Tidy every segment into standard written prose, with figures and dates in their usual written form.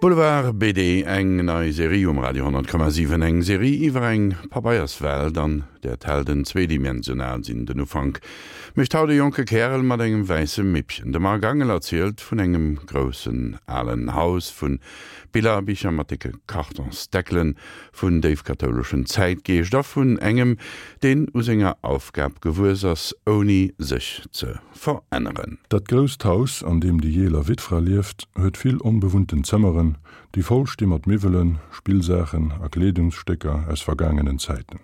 Boulevard BD, eng nei Serie um Radio 10,7. Eng Serie iwwer eng Pabeierswelt, an där d'Helden zweedimensional sinn. Den Ufank mécht haut e jonke Kärel mat engem wäisse Mippchen. De Marc Angel erzielt vun engem groussen alen Haus, vu Billerbicher mat décke Kartonsdeckelen, vun déifkathouleschem Zäitgeescht a vun engem, deen u senger Aufgab gewuess ass, ouni sech ze veränneren. Dat grousst Haus, an deem déi jeeler Wittfra lieft, huet vill onbewunnten Zëmmeren, déi voll sti mat Miwwelen, Spillsaachen a Kleedungsstécker aus vergaangenen Zäiten.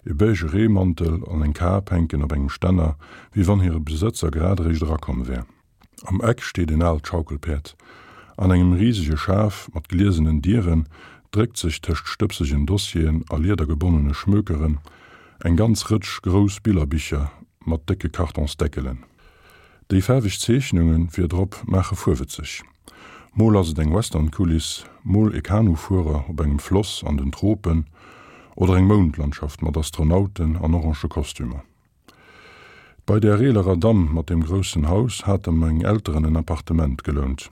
E beige Reemantel an eng Kap hänken op engem Stänner, wéi wann hire Besëtzer grad eréischt erakomm wär. Am Eck steet en aalt Schaukelpäerd. An engem risege Schaf mat gliesenen Dieren dréckt sech tëscht stëbsegen Dossieren a liedergebonnene Schmökeren eng ganz Rëtsch grouss Billerbicher mat décke Kartonsdeckelen. Déi faarweg Zeechnunge virdrop maache fuerwëtzeg. Mol ass et eng Westernkuliss, mol e Kanufuerer op engem Floss an den Tropen oder eng Moundlandschaft mat Astronauten an orange Kostümer. Bei där eelerer Damm mat deem groussen Haus hate meng Elteren en Appartement gelount.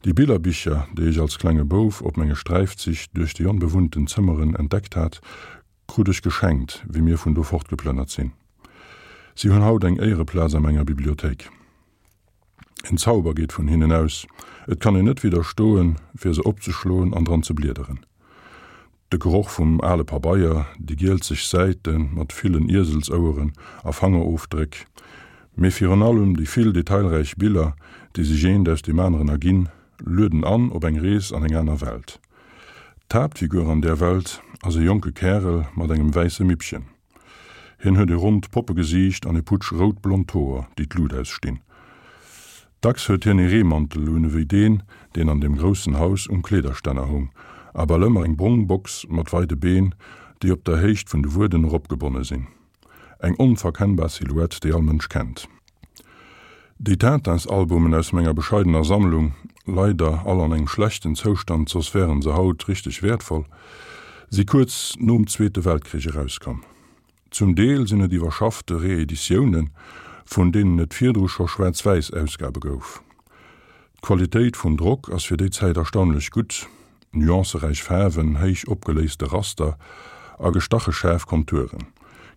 Déi Billerbicher, déi ech als klenge Bouf op menge Sträifzich duerch déi onbewunnten Zëmmeren entdeckt hat, krut ech geschenkt, wéi mir vun do fortgeplënnert sinn. Si hunn haut eng Éiereplaz a menger Bibliothéik. En Zauber geet vun hinnen aus, et kann een net widderstoen, fir se opzeschloen an dran ze bliederen. De Geroch vum ale Pabeier, déi gielzeg Säite mat villen Ieselsoueren a Fangerofdréck, mee virun allem déi vill detailräich Biller, déi sech eent aus deem aneren erginn, lueden an op eng Rees an eng aner Welt. D'Haaptfigur an där Welt ass e jonke Kärel mat engem wäisse Mippchen. Hien huet e ronnt Poppegesiicht an e Putsch rout-blond Hoer, déi d'Lut ausstinn. Dacks huet hien e Reemantel un ewéi deen, deen an deem groussen Haus um Kleederstänner hung, a bal ëmmer eng brong Box mat weide Been, déi op der Héicht vun de Wueden eropgebonne sinn. Eng onverkennbar Silhouette, déi all Mënsch kennt. Déi Tintins-Albumen aus menger bescheidener Sammlung, leider all an engem schlechten Zoustand, soss wären se haut richteg wäertvoll, si kuerz nom Zweete Weltkrich erauskomm. Zum Deel sinn et iwwerschaffte Reeditiounen, vun deenen et virdru scho schwaarz-wäiss Ausgabe gouf. D'Qualitéit vum Drock ass fir déi Zäit erstaunlech gutt, nuanceräich Faarwen, héich opgeléiste Raster a gestache schaarf Konturen.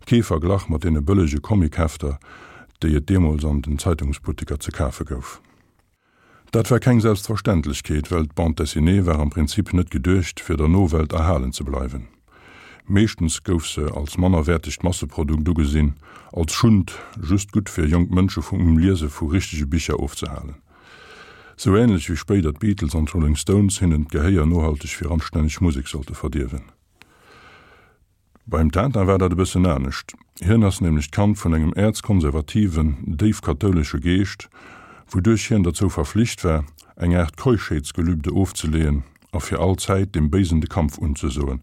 Kee Verglach mat deene bëllege Comichefter, déi et deemools an den Zeitungsbutteker ze kafe gouf. Dat war keng Selbstverständlechkeet, well d'Bande dessinée war am Prinzip net geduecht, fir der Nowelt erhalen ze bleiwen. Meeschtens gouf se als mannerwäertegt Masseprodukt ugesinn, als Schund, just gutt fir jonk Mënsche vum Liese vu richtege Bicher ofzehalen. Sou änlech wéi spéider d'Beatles an d'Rolling Stones hinnen d'Gehéier nohalteg fir anstänneg Musek sollte verdierwen. Beim Tintin war dat e bëssen anescht. Hien ass nämlech d'Kand vun engem äerzkonservativen, déif kathoulesche Geescht, wouduerch hien derzou verflicht war, eng Aart Keuschheetsgelübde ofzeleeën a fir all Zäit dem Béisen de Kampf unzesoen.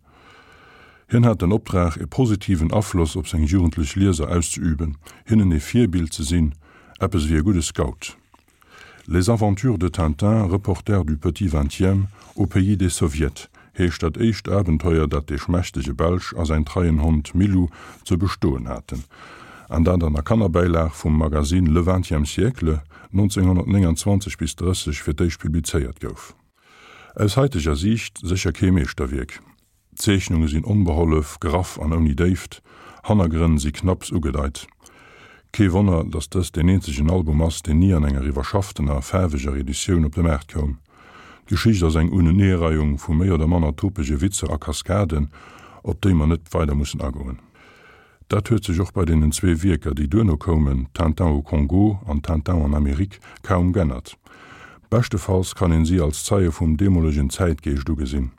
Hien hat den Optrag, e positiven Afloss op seng jugendlech Lieser auszeüben, hinnen e Virbild ze sinn, eppes ewéi e gudde Scout. Les aventures de Tintin, reporter du petit vingtième, au pays des Soviets heescht dat éischt Abenteuer, dat dee schmächtege Belsch a säin treien Hond Milou ze bestoen haten, an dat an der Kannerbäilag vum Magazine Le Vingtième Siècle 1929 bis 30 fir d'éischt publizéiert gouf. Aus haiteger Siicht sécher kee Meeschterwierk. D'Zeechnunge sinn onbehollef, graff an ouni Déift, Hannergrënn si knapps ugedeit. Kee Wonner, datt dëst deen eenzegen Album ass, deen ni an enger iwwerschafftener, faarweger Editioun op de Maart koum. D'Geschicht ass eng Uneneereiung vu méi oder manner topege Witzer a Kaskaden, op déi mer net weider mussen agoen. Dat huet sech och bei deenen zwee Wierker, déi duerno koumen, Tintin au Congo an Tintin en Amérique, kaum g'ännert. Beschtefalls kann een si als Zeie vum deemolegen Zäitgeescht ugesinn.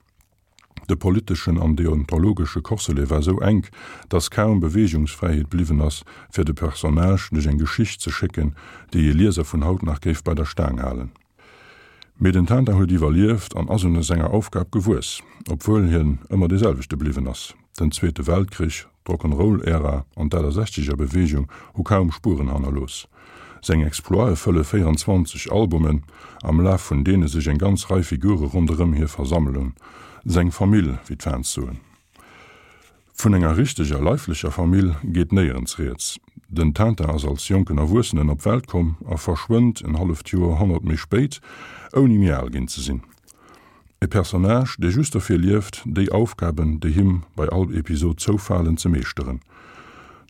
De politeschen an deontologesche Corselet war sou enk, dass kaum Beweegungsfräiheet bliwwen ass, fir de Personnage duerch eng Geschicht ze schécken, déi ee Lieser vun haut nach géif bei der Staang halen. Mee den Tintin huet iwwerlieft an ass un senger Aufgab gewuess, obwuel hien ëmmer dee selwechte bliwwen ass. Den Zweete Weltkrich, d'Rock'n'Roll-Ära an d'Achtesechzeger Beweegung hu kaum Spueren hannerlooss. Seng Exploite fëlle 24 Albumen, am Laf vun deene sech eng ganz Rei Figure ronderëm hie versammelen, seng Famill, wéi d'Fans soen. Vun enger richteger leiflecher Famill geet néierens rieds. Den Tintin ass als jonken Erwuessenen op d'Welt komm a verschwënnt en halleft Joerhonnert méi spéit, ouni méi al ginn ze sinn. E Personnage, dee just dofir lieft, déi Aufgaben, déi him bei all Episod zoufalen, ze meeschteren.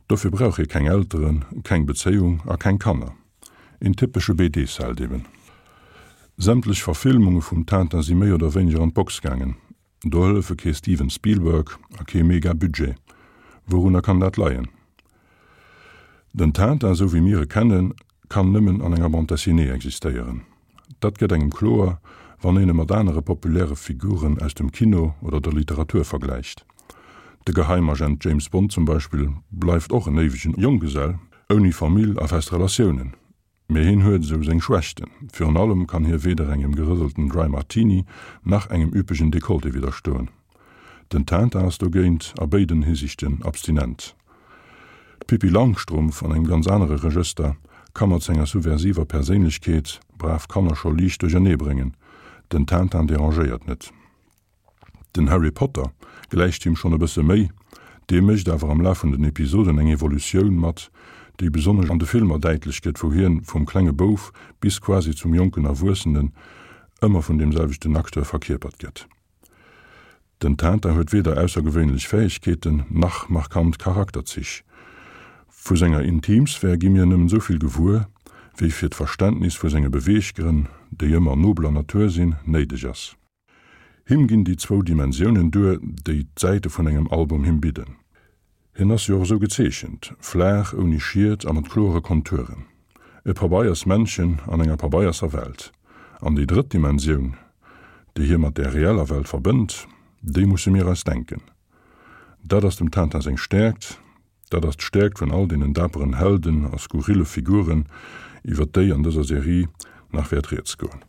Dofir brauch hie keng Elteren, keng Bezéiung a keng Kanner. Een typesche BD-Sheld eben. Sämtlech Verfilmunge vum Tintin si méi oder wéineger an d'Box gaangen. Do hëllefe kee Steven Spielberg a kee Mega-Budget. Wourunner kann dat leien? Den Tintin, esou wéi mir e kennen, kann nëmmen an enger Bande dessinée existéieren. Dat gëtt engem kloer, wann een e mat anere populäre Figuren aus dem Kino oder der Literatur vergläicht. De Geheimagent James Bond zum Beispill bleift och en éiwegen Jonggesell, ouni Famill a fest Relatiounen. Mee hien huet esou seng Schwächten. Virun allem kann hie weder engem gerëselten Dry Martini nach engem üppegen Dekolleté widderstoen. Den Tintin ass dogéint a béiden Hisiichten abstinent. D'Pippi Langstrumpf, an engem ganz anere Regëster, ka mat senger subversiver Perséinlechkeet brav Kanner scho liicht duerchernee bréngen. Den Tintin derangéiert net. Den Harry Potter gläicht him schonn e bësse méi, dee mécht awer am Laf vun den Episoden eng Evolutioun mat, déi besonnesch an de Filmer däitlech gëtt, wou hien vum klenge Bouf bis quasi zum jonken Erwuessenen ëmmer vun deem selwechten Acteur verkierpert gëtt. Den Tintin huet weder aussergewéinlech Fäegkeeten nach markant Charakterzich. Vu senger Intimsphär gi mir nëmmen esou vill gewuer, wéi fir d'Verständnis vu senge Beweeggrënn, déi ëmmer nobler Natur sinn, néideg ass. Him ginn déi zwou Dimensiounen duer, déi d'Säite vun engem Album him bidden. Hien ass jo och esou gezeechent, flaach, ouni Schiet a mat kloere Konturen. E Pabeiers-Männchen an enger pabeierser Welt. An déi drëtt Dimensioun, déi hie mat där reeller Welt verbënnt, déi musse mir eis denken. Dat ass dem Tintin seng Stäerkt, Dat ass d'Stäerkt vun all deenen daperen Helden a skurrille Figuren, iwwer déi an dëser Serie nach wäert rieds goen.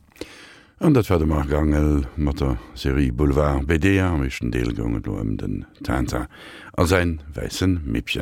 An dat war de Marc Angel mat der Serie Boulevard BD. Am éischten Deel goung et elo ëm den Tintin a säin wäisse Mippchen.